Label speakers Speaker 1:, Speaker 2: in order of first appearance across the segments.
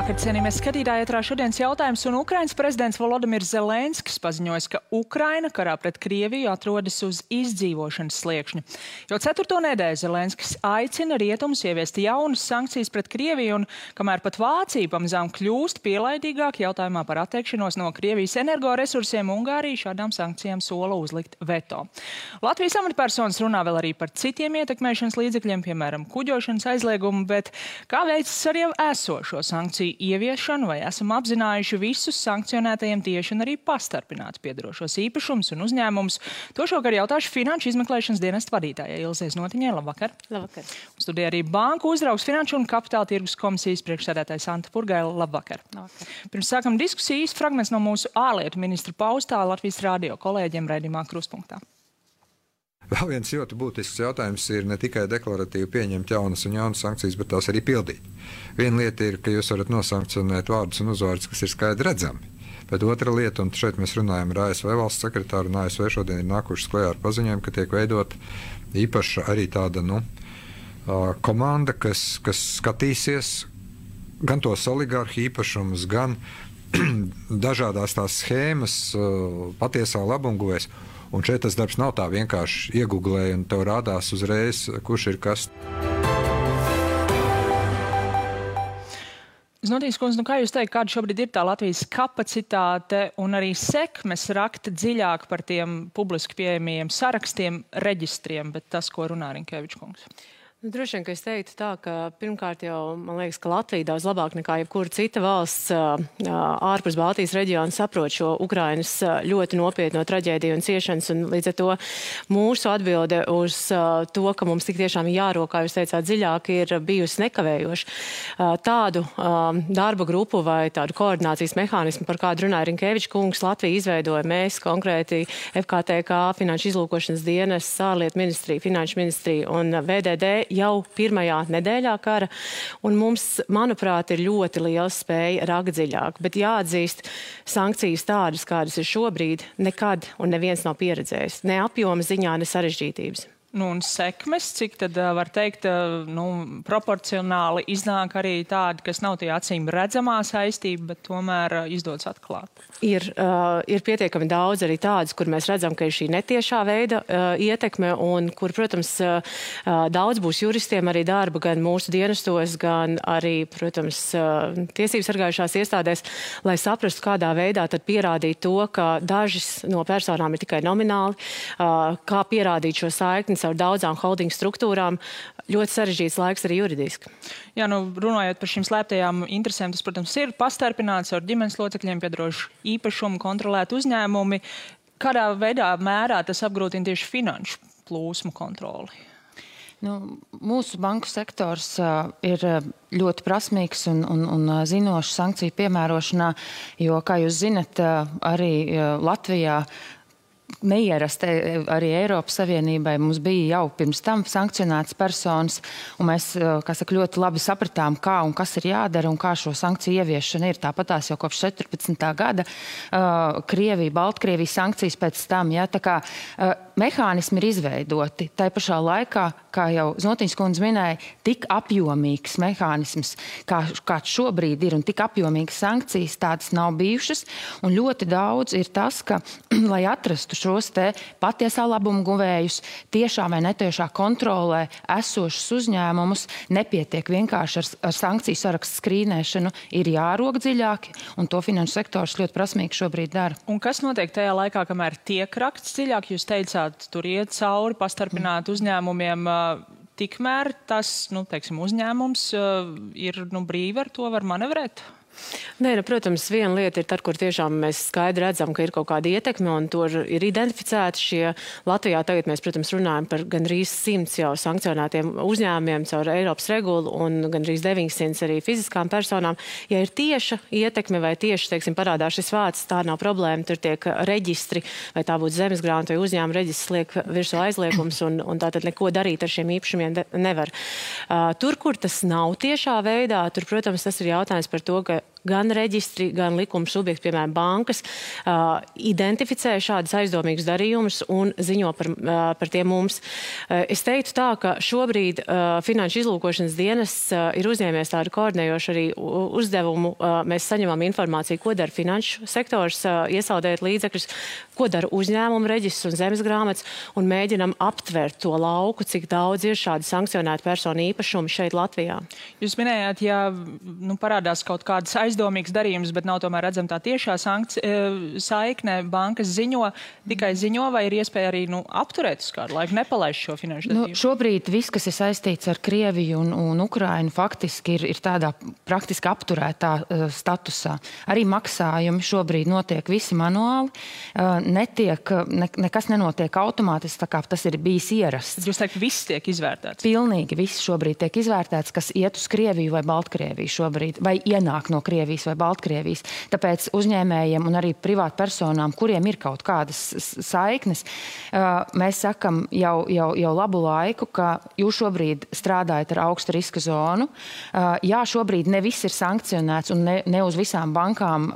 Speaker 1: Labvakar, cienījamies skatītāji, ētrā šodienas jautājums, un Ukrainas prezidents Volodimirs Zelenskis paziņoja, ka Ukraina karā pret Krieviju atrodas uz izdzīvošanas sliekšņa. Jau 4. nedēļu Zelenskis aicina rietumus ieviest jaunas sankcijas pret Krieviju, un kamēr pat Vācija pamazām kļūst pielaidīgāk jautājumā par atteikšanos no Krievijas energoresursiem, Ungārija šādām sankcijām sola uzlikt veto. Latvijas amatpersonas runā vēl arī par citiem ietekmēšanas līdzekļiem, piemēram, kuģošanas aizliegumu, bet kā veicas ar jau esošo sankciju ieviešanu, vai esam apzinājuši visus sankcionētajiem tieši un arī pastarpināti piedarošos īpašumus un uzņēmumus? To šovakar jautāšu Finanšu izmeklēšanas dienesta vadītājai Ilzei Znotiņai. Labvakar!
Speaker 2: Labvakar!
Speaker 1: Studijā arī Banku uzraugs Finanšu un Kapitāla tirgus komisijas priekšsēdētājs Anta Purgaila. Labvakar!
Speaker 2: Labvakar!
Speaker 1: Pirms sākam diskusijas fragments no mūsu ārlietu ministra paustā Latvijas radio kolēģiem raidījumā Kruspunktā.
Speaker 3: Vēl viens ļoti būtisks jautājums ir ne tikai deklaratīvi pieņemt jaunas un jaunas sankcijas, bet tās arī pildīt. Viena lieta ir, ka jūs varat nosankcionēt vārdus un uzvārdus, kas ir skaidri redzami. Bet otra lieta, un šeit mēs runājam ar ASV valsts sekretāru, un ASV šodien ir nākušas klajā ar paziņojumu, ka tiek veidot īpaša arī tāda komanda, kas skatīsies gan tos oligarhu īpašumus, gan dažādās tās schēmas patiesā labumguvēs. Un šeit tas darbs nav tā vienkārši iegooglē un tev rādās uzreiz, kurš ir kas.
Speaker 1: Znotīs kundze, kā jūs teikt, kāda šobrīd ir tā Latvijas kapacitāte un arī sekmes rakt dziļāk par tiem publiski pieejamajiem sarakstiem, reģistriem, bet tas, ko runā Rinkevičs kungs?
Speaker 2: Droši vien, ka es teiktu tā, ka pirmkārt jau, man liekas, ka Latvija daudz labāk nekā jebkura cita valsts ārpus Baltijas reģiona saprot šo Ukrainas ļoti nopietno traģēdiju un ciešanas, un līdz ar to mūsu atbilde uz to, ka mums tik tiešām jārok, kā jūs teicāt, dziļāk, ir bijusi nekavējoša. Tādu darba grupu vai tādu koordinācijas mehānismu, par kādu runāja Rinkevičs kungs, Latvija izveidoja. Mēs konkrēti FKTK, Finanšu izlūkošanas dienas, ārlietu ministrija, Finanšu ministrija un VDD jau pirmajā nedēļā kara, un mums, manuprāt, ir ļoti liela spēja rakt dziļāk. Bet jāatzīst, sankcijas tādas, kādas ir šobrīd, nekad un neviens nav pieredzējis. Ne apjoma ziņā, ne sarežģītības.
Speaker 1: Un sekmes, cik tad var teikt, proporcionāli iznāk arī tādi, kas nav tie acīm redzamā saistība, bet tomēr izdodas atklāt?
Speaker 2: Ir pietiekami daudz arī tādas, kur mēs redzam, ka ir šī netiešā veida ietekme, un kur, protams, daudz būs juristiem arī darba gan mūsu dienestos, gan arī, protams, tiesības sargājušās iestādēs, lai saprastu, kādā veidā tad pierādīt to, ka dažas no personām ir tikai nomināli, kā pierādīt šo saikni ar daudzām holding struktūrām. Ļoti sarežģīts laiks arī juridiski.
Speaker 1: Jā, runājot par šīm slēptajām interesēm, tas, protams, ir pastarpināts ar ģimenes locekļiem piedarošu īpašumu, kontrolēt uzņēmumi. Kādā veidā mērā tas apgrūtina tieši finanšu plūsmu kontroli?
Speaker 4: Mūsu banku sektors ir ļoti prasmīgs un zinošs sankciju piemērošanā, jo, kā jūs zinat, arī Latvijā neierasti arī Eiropas Savienībai mums bija jau pirms tam sankcionētas personas, un mēs, kā saka, ļoti labi sapratām, kā un kas ir jādara un kā šo sankciju ieviešana ir. Tāpatās jau kopš 14. gada Krievija, Baltkrievija sankcijas pēc tam, ja, tā kā mehānismi ir izveidoti. Tā pašā laikā, kā jau Znotiņas kundze minēja, tik apjomīgs mehānisms, kāds šobrīd ir, un tik apjomīgas sankcijas tādas nav bijušas, un ļoti daudz ir tas, ka, lai atrastu šos te patiesā labuma guvējus, tiešā vai netiešā kontrolē esošus uzņēmumus, nepietiek vienkārši ar sankciju sarakstu skrīnēšanu, ir jārok dziļāki, un to finanšu sektors ļoti prasmīgi šobrīd dara.
Speaker 1: Un kas notiek tajā laikā, kamēr tiek raksts dziļāk? Jūs teicāt, tur iet cauri pastarpināt uzņēmumiem, tikmēr tas, teiksim, uzņēmums ir brīvi ar to var manevrēt?
Speaker 2: Nē, protams, viena lieta ir tad, kur tiešām mēs skaidri redzam, ka ir kaut kāda ietekme, un tur ir identificēti šie. Latvijā tagad mēs, protams, runājam par gandrīz 100 jau sankcionētiem uzņēmumiem caur Eiropas regulu un gandrīz 900 arī fiziskām personām. Ja ir tieša ietekme vai tieši, teiksim, parādās šis vārds, tā nav problēma, tur tiek reģistri, vai tā būtu zemesgrāmata vai uzņēmuma reģistrs, liek virsū aizliegums, un tātad neko darīt ar šiem īpašumiem nevar. Tur, kur tas nav tiešā veidā, tur, protams, tas ir jautājums par to, ka gan reģistri, gan likuma subjekti, piemēram, bankas, identificē šādus aizdomīgus darījumus un ziņo par tiem mums. Es teiktu tā, ka šobrīd Finanšu izlūkošanas dienests ir uzņēmies tādu koordinējošu arī uzdevumu. Mēs saņemam informāciju, ko dara finanšu sektors, iesaldējot līdzekļus, ko dara uzņēmumu reģistrs un zemes grāmatas, un mēģinam aptvert to lauku, cik daudz ir šādi sankcionēti personu īpašumi šeit Latvijā.
Speaker 1: Jūs minējāt, ja parādās kaut kādas aizdomīgas darījumus, bet nav tomēr redzama tā tiešā saikne, bankas tikai ziņo, vai ir iespēja arī apturēt uz kādu laiku, nepalaist šo finanšu darījumu?
Speaker 4: Šobrīd viss, kas ir saistīts ar Krieviju un Ukrainu, faktiski ir tādā praktiski apturētā statusā. Arī maksājumi šobrīd notiek visi manuāli, nekas nenotiek automātiski, tā kā tas ir bijis ierasts.
Speaker 1: Jūs teikt, viss tiek izvērtēts?
Speaker 4: Pilnīgi viss šobrīd tiek izvērtēts, kas iet uz Krieviju vai Baltkrieviju šobrīd, vai ienāk no Krievijas vai Baltkrievijas. Tāpēc uzņēmējiem un arī privātpersonām, kuriem ir kaut kādas saiknes, mēs sakam jau labu laiku, ka jūs šobrīd strādājat ar augstu riska zonu. Jā, šobrīd ne viss ir sankcionēts un ne uz visām bankām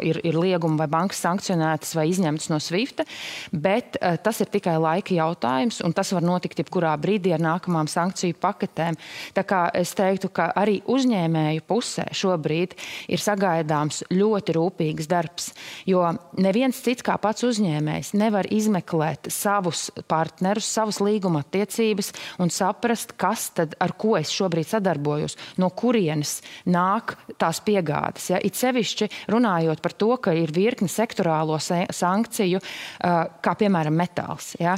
Speaker 4: ir liegumi vai bankas sankcionētas vai izņemtas no SWIFT, bet tas ir tikai laika jautājums un tas var notikt jebkurā brīdī ar nākamām sankciju paketēm. Tā kā es teiktu, ka arī uzņēmēju pusē šobrīd ir sagaidāms ļoti rūpīgs darbs, jo neviens cits kā pats uzņēmējs nevar izmeklēt savus partnerus, savus līguma attiecības un saprast, kas tad, ar ko es šobrīd sadarbojos, no kurienes nāk tās piegādes. Ja? It sevišķi runājot par to, ka ir virkni sektorālo sankciju, kā piemēram metāls. Ja?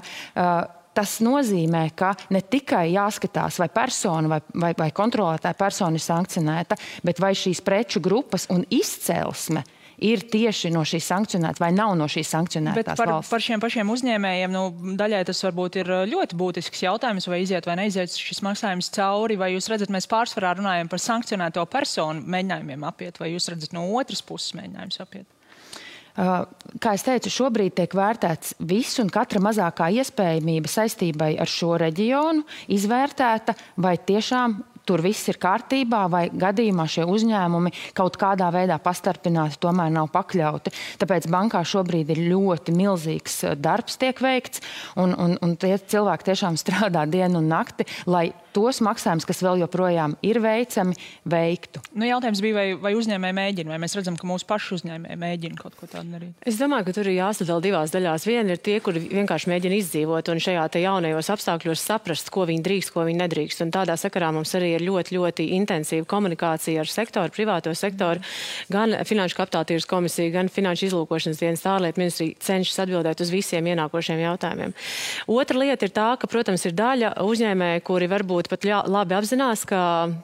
Speaker 4: Tas nozīmē, ka ne tikai jāskatās, vai persona vai kontrolētāja persona ir sankcionēta, bet vai šīs preču grupas un izcelsme ir tieši no šīs sankcionētas vai nav no šīs sankcionētās valsts.
Speaker 1: Bet par šiem pašiem uzņēmējiem, daļai tas varbūt ir ļoti būtisks jautājums, vai iziet vai neiziet šis maksājums cauri, vai jūs redzat, mēs pārsvarā runājam par sankcionēto personu mēģinājumiem apiet, vai jūs redzat no otras puses mēģinājums apiet?
Speaker 4: Kā es teicu, šobrīd tiek vērtēts viss un katra mazākā iespējamība saistībai ar šo reģionu izvērtēta, vai tiešām tur viss ir kārtībā, vai gadījumā šie uzņēmumi kaut kādā veidā pastarpināti tomēr nav pakļauti. Tāpēc bankā šobrīd ir ļoti milzīgs darbs tiek veikts, un tie cilvēki tiešām strādā dienu un nakti, lai tos maksājumus, kas vēl joprojām ir veicami, veiktu.
Speaker 1: Jautājums bija, vai uzņēmēji mēģina, vai mēs redzam, ka mūsu paši uzņēmēji mēģina kaut ko tādu darīt?
Speaker 2: Es domāju, ka tur ir jāsadala divās daļās. Viena ir tie, kuri vienkārši mēģina izdzīvot un šajā te jaunajos apstākļos saprast, ko viņi drīkst, ko viņi nedrīkst. Un tādā sakarā mums arī ir ļoti intensīva komunikācija ar sektoru, privāto sektoru. Gan Finanšu kapitāla tirgus komisija, gan Finanšu izlūkošanas dienas ārlietu ministrija cenšas atbildēt uz visiem ienākošiem jautājumiem. Otra lieta ir tā, ka, protams, ir daļa uzņēmēji, kuri varbūt pat labi apzinās, ka,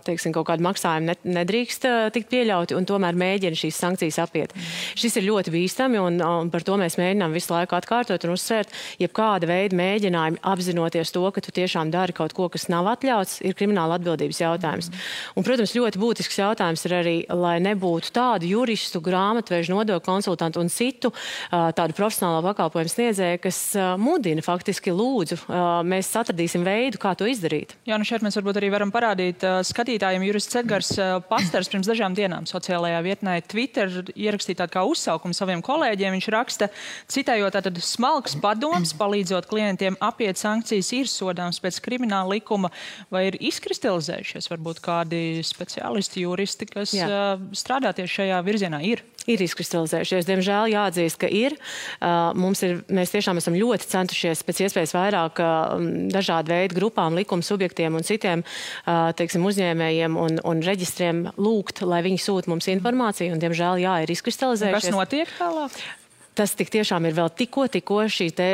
Speaker 2: teiksim, kaut kādu maksājumu nedrīkst tikt pieļauti un tomēr mēģina šīs sankcijas apiet. Šis ir ļoti bīstami un par to mēs mēģinām visu laiku atkārtot un uzsvērt, jebkāda veida mēģinājumi apzinoties to, ka tu tiešām dari kaut ko, kas nav atļauts, ir krimināla atbildības jautājums. Un, protams, ļoti būtisks jautājums ir arī, lai nebūtu tādu juristu, grāmatvežu, nodokļu konsultantu un citu tādu profesionālo pakalpojumu sniedzēju, kas mudina faktiski lūdzu. Mēs atradīsim veidu, kā to izdarīt.
Speaker 1: Jā, šeit mēs varbūt arī varam parādīt skatītājiem. Jurists Edgars Pastars pirms dažām dienām sociālajā vietnē Twitter ierakstīja tādu kā uzsaukumu saviem kolēģiem. Viņš raksta, citējot, tātad smalks padoms, palīdzot klientiem apiet sankcijas, ir sodāms pēc krimināla likuma, vai ir izkristalizējušies varbūt kādi speciālisti, juristi, kas strādā tieši šajā virzienā?
Speaker 2: Ir izkristalizējušies. Diemžēl jāatzīst, ka ir. Mēs tiešām esam ļoti centušies pēc iespējas vairāk dažādu veidu grupām, likuma subjektiem un citiem, teiksim, uzņēmējiem un reģistriem lūgt, lai viņi sūta mums informāciju, un diemžēl, ir izkristalizējušies.
Speaker 1: Kas notiek tālāk?
Speaker 2: Tas tik tiešām ir vēl tikko šī te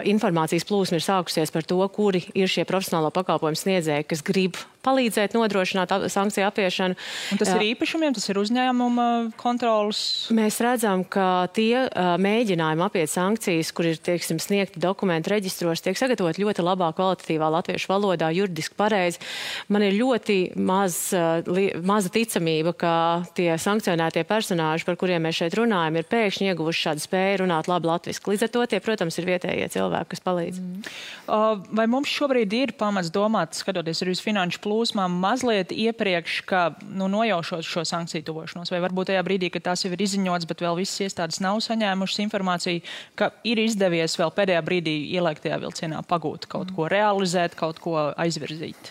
Speaker 2: informācijas plūsma ir sākusies par to, kuri ir šie profesionālo pakalpojumu sniedzēji, kas grib palīdzēt nodrošināt sankciju apiešanu.
Speaker 1: Un tas ir īpašumiem, tas ir uzņēmuma kontrolas?
Speaker 2: Mēs redzam, ka tie mēģinājumi apiet sankcijas, kur ir, teiksim, sniegti dokumenti reģistros, tiek sagatavot ļoti labā kvalitatīvā latviešu valodā, juridiski pareizi. Man ir ļoti maza ticamība, ka tie sankcionētie personāži, par kuriem mēs šeit runājam, ir pēkšņi ieguvuši šādu spēju runāt labi latviski. Līdz ar to tie, protams, ir vietējie cilvēki, kas palīdz.
Speaker 1: Vai mums šobrīd ir pamats domāt, skatoties arī uz finanšu plūsmu, plūsmām mazliet iepriekš, ka nojaušot šo sankciju tuvošanos? Vai varbūt tajā brīdī, kad tās jau ir izziņotas, bet vēl visas iestādes nav saņēmušas informāciju, ka ir izdevies vēl pēdējā brīdī ielēkt tajā vilcienā pagūt kaut ko realizēt, kaut ko aizvirzīt?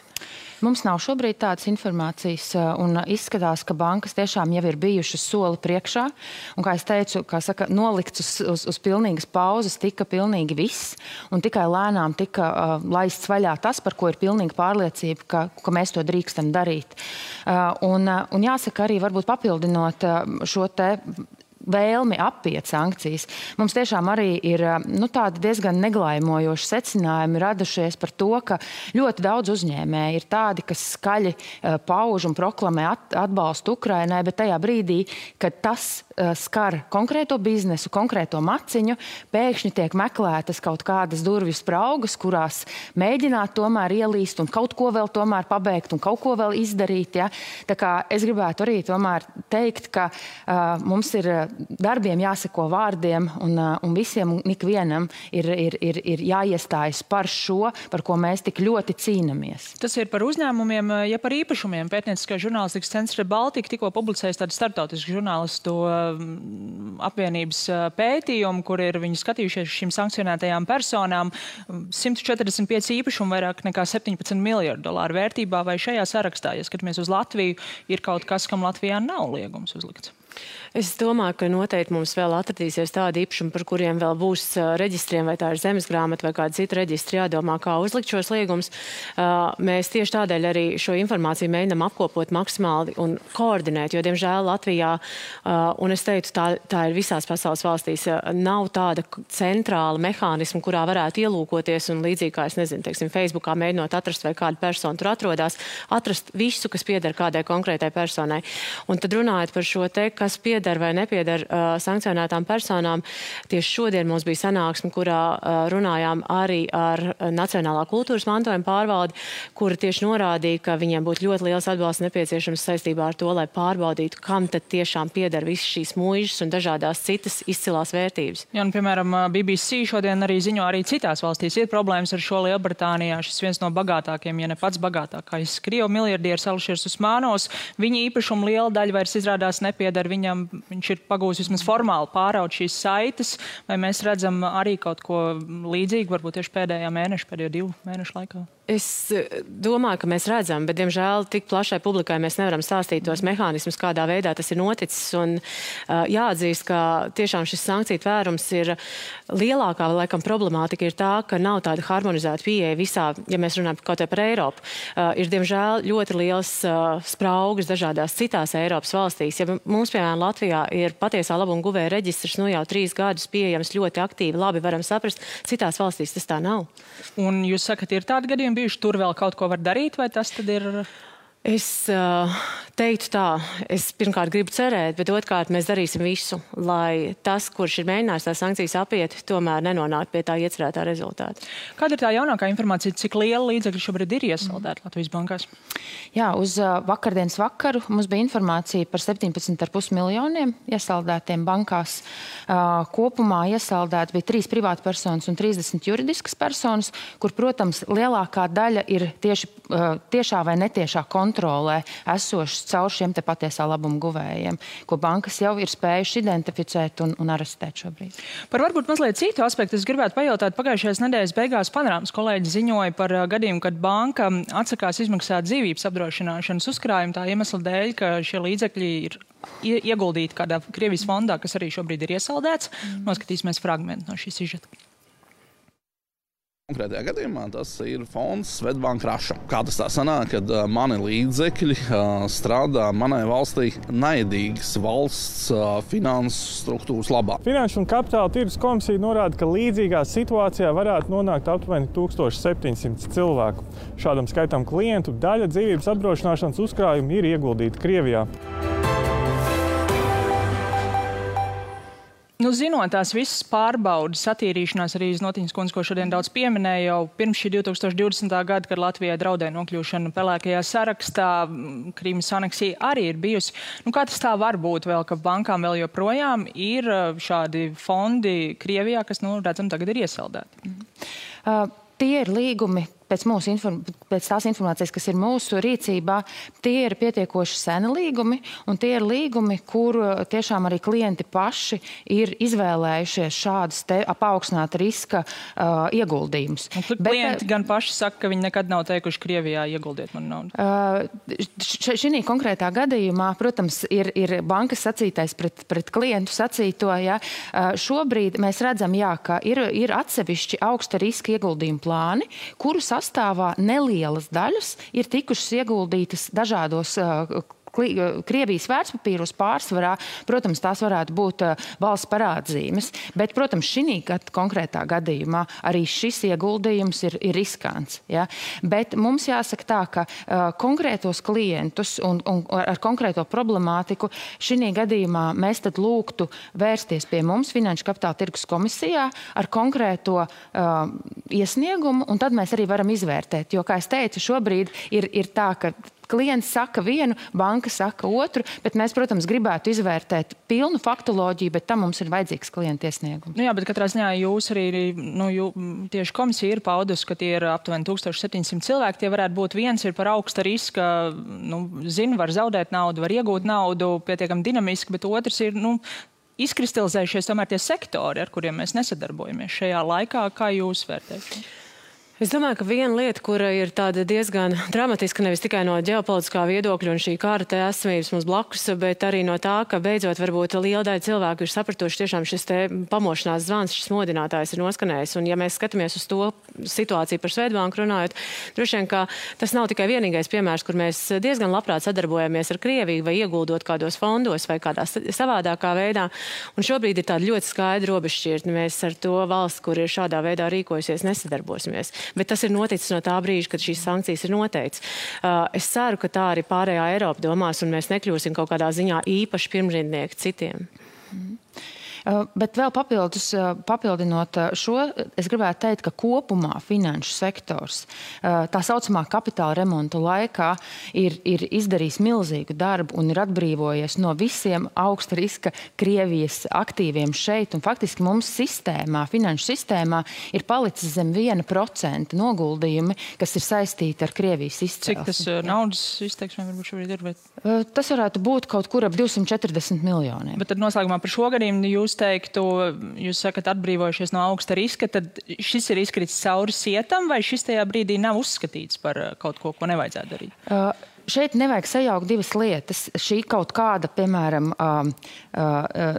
Speaker 4: Mums nav šobrīd tādas informācijas, un izskatās, ka bankas tiešām jau ir bijušas soli priekšā. Un, kā es teicu, nolikts uz pilnīgas pauzes tika pilnīgi viss, un tikai lēnām tika laists vaļā tas, par ko ir pilnīga pārliecība, ka mēs to drīkstam darīt. Un jāsaka arī, varbūt papildinot šo te vēlmi apiet sankcijas. Mums tiešām arī ir tādi diezgan neglājmojoši secinājumi radušies par to, ka ļoti daudz uzņēmēji ir tādi, kas skaļi pauž un proklamē atbalstu Ukrainai, bet tajā brīdī, kad tas skar konkrēto biznesu, konkrēto maciņu, pēkšņi tiek meklētas kaut kādas durvju spraugas, kurās mēģināt tomēr ielīst un kaut ko vēl tomēr pabeigt un kaut ko vēl izdarīt. Ja? Tā kā es gribētu arī tomēr teikt, ka mums ir darbiem jāseko vārdiem un visiem un ikvienam ir jāiestājas par šo, par ko mēs tik ļoti cīnamies.
Speaker 1: Tas ir par uzņēmumiem, ja par īpašumiem. Pētnieciskā žurnālistikas centrs Baltika tikko publicējis tādu starptautisku žurnālistu apvienības pētījumu, kur ir viņi skatījušies šīm sankcionētajām personām. 145 īpašumu vairāk nekā 17 miljardu dolāru vērtībā, vai šajā sarakstā, ja skatāmies uz Latviju, ir kaut kas, kam Latvijā nav liegums uzlikts?
Speaker 2: Es domāju, ka noteikti mums vēl atradīsies tādi īpašumi, par kuriem vēl būs reģistriem, vai tā ir zemesgrāmata vai kāda cita reģistri jādomā, kā uzlikt šos liegumus. Mēs tieši tādēļ arī šo informāciju mēģinām apkopot maksimāli un koordinēt, jo, diemžēl, Latvijā, un es teicu, tā ir visās pasaules valstīs, nav tāda centrāla mehānisma, kurā varētu ielūkoties un līdzīgi, kā es nezinu, teiksim, Facebookā mēģinot atrast, vai kāda persona tur atrodas, atrast visu, kas pieder kādai konkrētai personai. Un tad runājot par šo te, kas pieder vai nepieder sankcionētām personām. Tieši šodien mums bija sanāksme, kurā runājām arī ar Nacionālā kultūras mantojuma pārvaldi, kura tieši norādīja, ka viņiem būtu ļoti liels atbalsts nepieciešams saistībā ar to, lai pārbaudītu, kam tad tiešām pieder visas šīs muižas un dažādās citas izcilās vērtības.
Speaker 1: Jā, un, piemēram, BBC šodien arī ziņo, arī citās valstīs ir problēmas ar šo Lielbritānijā. Šis viens no bagātākiem, ja ne pats bagātākais Krievu miljardieris Ališers Usmanovs. Viņa īpašuma liela daļa vairs izrādās nepieder viņam. Viņš ir pagūs vismaz formāli pāraut šīs saites, vai mēs redzam arī kaut ko līdzīgu, varbūt tieši pēdējo 2 mēnešu laikā?
Speaker 2: Es domāju, ka mēs redzam, bet, diemžēl, tik plašai publikai mēs nevaram stāstīt tos mehānismus, kādā veidā tas ir noticis. Un jāatzīst, ka tiešām šis sankciju tvērums ir lielākā, laikam, problemātika ir tā, ka nav tāda harmonizēta pieeja visā, ja mēs runājam kaut par Eiropu. Ir, diemžēl, ļoti liels spraugas dažādās citās Eiropas valstīs. Ja mums, piemēram, Latvijā ir patiesā labuma guvēja reģistrs, jau 3 gadus pieejams ļoti aktīvi, labi varam saprast, citās valstīs tas tā nav.
Speaker 1: Un jūs sakat, ir tādi gadījumi bijuši, tur vēl kaut ko var darīt, vai tas tad ir?
Speaker 2: Es teiktu tā, es pirmkārt gribu cerēt, bet otrkārt mēs darīsim visu, lai tas, kurš ir mēģinājis tās sankcijas apiet, tomēr nenonāk pie tā iecerētā rezultāta.
Speaker 1: Kāda ir tā jaunākā informācija, cik liela līdzekļi šobrīd ir iesaldēti Latvijas bankās?
Speaker 4: Jā, uz vakardienas vakaru mums bija informācija par 17,5 miljoniem iesaldētiem bankās. Kopumā iesaldēti bija 3 privātpersonas un 30 juridiskas personas, kur, protams, lielākā daļa ir tiešā vai netiešā kontrolē esošas caur šiem te patiesā labuma guvējiem, ko bankas jau ir spējuši identificēt un arestēt šobrīd.
Speaker 1: Par varbūt mazliet citu aspektu es gribētu pajautāt. Pagājušajās nedēļas beigās Panorāmas kolēģi ziņoja par gadījumu, kad banka atsakās izmaksāt dzīvības apdrošināšanas uzkrājumu tā iemesla dēļ, ka šie līdzekļi ir ieguldīti kādā Krievijas fondā, kas arī šobrīd ir iesaldēts. Noskatīsimies fragmentu no šī sižeta.
Speaker 5: Konkrētajā gadījumā tas ir fonds Svetbank Raša. Kā tas tā sanāk, kad mani līdzekļi strādā manai valstī naidīgas valsts finanses struktūras labā.
Speaker 6: Finanšu un kapitāla tirgus komisija norāda, ka līdzīgā situācijā varētu nonākt aptuveni 1700 cilvēku. Šādam skaitam klientu daļa dzīvības apdrošināšanas uzkrājumi ir ieguldīti Krievijā.
Speaker 1: Zinot tās visas pārbaudas, attīrīšanās arī Znotiņas kundze, ko šodien daudz pieminēja jau pirms šī 2020. gada, kad Latvijai draudēja nokļūšana pelēkajā sarakstā, Krīmas aneksija arī ir bijusi. Kā tas tā var būt vēl, ka bankām vēl joprojām ir šādi fondi Krievijā, kas, redzam, tagad ir iesaldēti?
Speaker 4: Tie ir līgumi, pēc tās informācijas, kas ir mūsu rīcībā, tie ir pietiekoši seni līgumi, un tie ir līgumi, kur tiešām arī klienti paši ir izvēlējušies šādas paaugstināta riska ieguldījumus.
Speaker 1: Klienti gan paši saka, ka viņi nekad nav teikuši Krievijā ieguldiet man naudu.
Speaker 4: Šī konkrētā gadījumā, protams, ir bankas sacītais pret klientu sacīto. Ja. Šobrīd mēs redzam, ka ir atsevišķi augsta riska ieguldījumu plāni, kuru sastāvā nelielas daļas ir tikušas ieguldītas dažādos Krievijas vērtspapīros pārsvarā, protams, tās varētu būt valsts parādzīmes, bet, protams, šī konkrētā gadījumā arī šis ieguldījums ir riskants. Ja? Bet mums jāsaka tā, ka konkrētos klientus un ar konkrēto problemātiku šī gadījumā mēs tad lūgtu vērsties pie mums Finanšu kapitāla tirgus komisijā ar konkrēto iesniegumu, un tad mēs arī varam izvērtēt. Jo, kā es teicu, šobrīd ir tā, ka klients saka vienu, banka saka otru, bet mēs, protams, gribētu izvērtēt pilnu faktoloģiju, bet tam mums ir vajadzīgs klienta iesniegums.
Speaker 1: Jā, bet katrā ziņā jūs arī, tieši komisija ir paudusi, ka tie ir aptuveni 1700 cilvēki, tie varētu būt viens ir par augsta riska, var zaudēt naudu, var iegūt naudu pietiekami dinamiski, bet otrs ir, izkristalizējušies tomēr tie sektori, ar kuriem mēs nesadarbojamies šajā laikā. Kā jūs vērtējat?
Speaker 2: Es domāju, ka viena lieta, kura ir tāda diezgan dramatiska, nevis tikai no ģeopolitiskā viedokļa un šī kara esamības mums blakus, bet arī no tā, ka beidzot varbūt liela daļa cilvēku ir sapratuši tiešām šis te pamošanās zvans, šis modinātājs ir noskanējis. Un ja mēs skatāmies uz to situāciju par Swedbanku runājot, droši vien, ka tas nav tikai vienīgais piemērs, kur mēs diezgan labprāt sadarbojamies ar Krieviju vai ieguldot kādos fondos vai kādā savādākā veidā. Un šobrīd ir tāda ļoti skaidra robežšķirtne. Mēs ar to valsts, kur ir šādā veidā rīkojusies, nesadarbosimies. Bet tas ir noticis no tā brīža, kad šīs sankcijas ir noteikts. Es ceru, ka tā arī pārējā Eiropa domās, un mēs nekļūsim kaut kādā ziņā īpaši pirmrindnieki citiem.
Speaker 4: Bet vēl papildinot šo, es gribētu teikt, ka kopumā finanšu sektors tā saucamā kapitāla remonta laikā ir izdarījis milzīgu darbu un ir atbrīvojies no visiem augsta riska Krievijas aktīviem šeit. Un faktiski mums finanšu sistēmā ir palicis zem 1% noguldījumi, kas ir saistīti ar Krievijas izcelsmi.
Speaker 1: Cik tas naudas izteiksmē varbūt šobrīd ir?
Speaker 4: Tas varētu būt kaut kur ap 240 miljoniem.
Speaker 1: Bet tad noslēgumā par šo gadījumu jūs teiktu, jūs sakat atbrīvojušies no augsta riska, tad šis ir izkritis cauri sietam, vai šis tajā brīdī nav uzskatīts par kaut ko nevajadzētu darīt?
Speaker 4: Šeit nevajag sajaukt divas lietas. Šī kaut kāda, piemēram,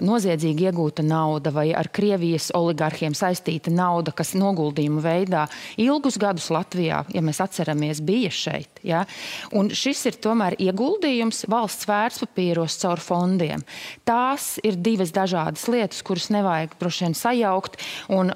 Speaker 4: noziedzīgi iegūta nauda vai ar Krievijas oligarhiem saistīta nauda, kas noguldījuma veidā ilgus gadus Latvijā, ja mēs atceramies, bija šeit. Ja? Un šis ir tomēr ieguldījums valsts vērtspapīros caur fondiem. Tās ir divas dažādas lietas, kuras nevajag droši vien sajaukt. Un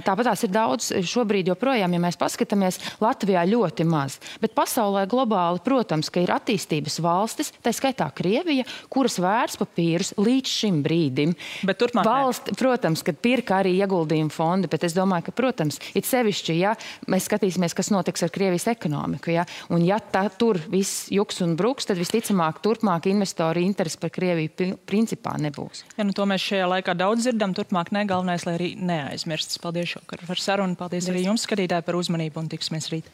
Speaker 4: tāpat tās ir daudz šobrīd joprojām, ja mēs paskatāmies, Latvijā ļoti maz. Bet pasaulē globāli, protams, ka ir attīstības valstis, tā skaitā Krievija, kuras vērtspapīrus līdz šim brīdim.
Speaker 1: Bet turpmāk
Speaker 4: protams, kad pirka arī ieguldījumu fondi, bet es domāju, ka, protams, it sevišķi, ja mēs skatīsimies, kas notiks ar Krievijas ekonomiku, ja, un ja tur viss juks un bruks, tad visticamāk turpmāk investori interesi par Krieviju principā nebūs.
Speaker 1: Ja, to mēs šajā laikā daudz dzirdam, turpmāk galvenais, lai arī neaizmirstas. Paldies šokar par sarunu, paldies arī jums, skatītāji, par uzmanību un tiksimies rīt.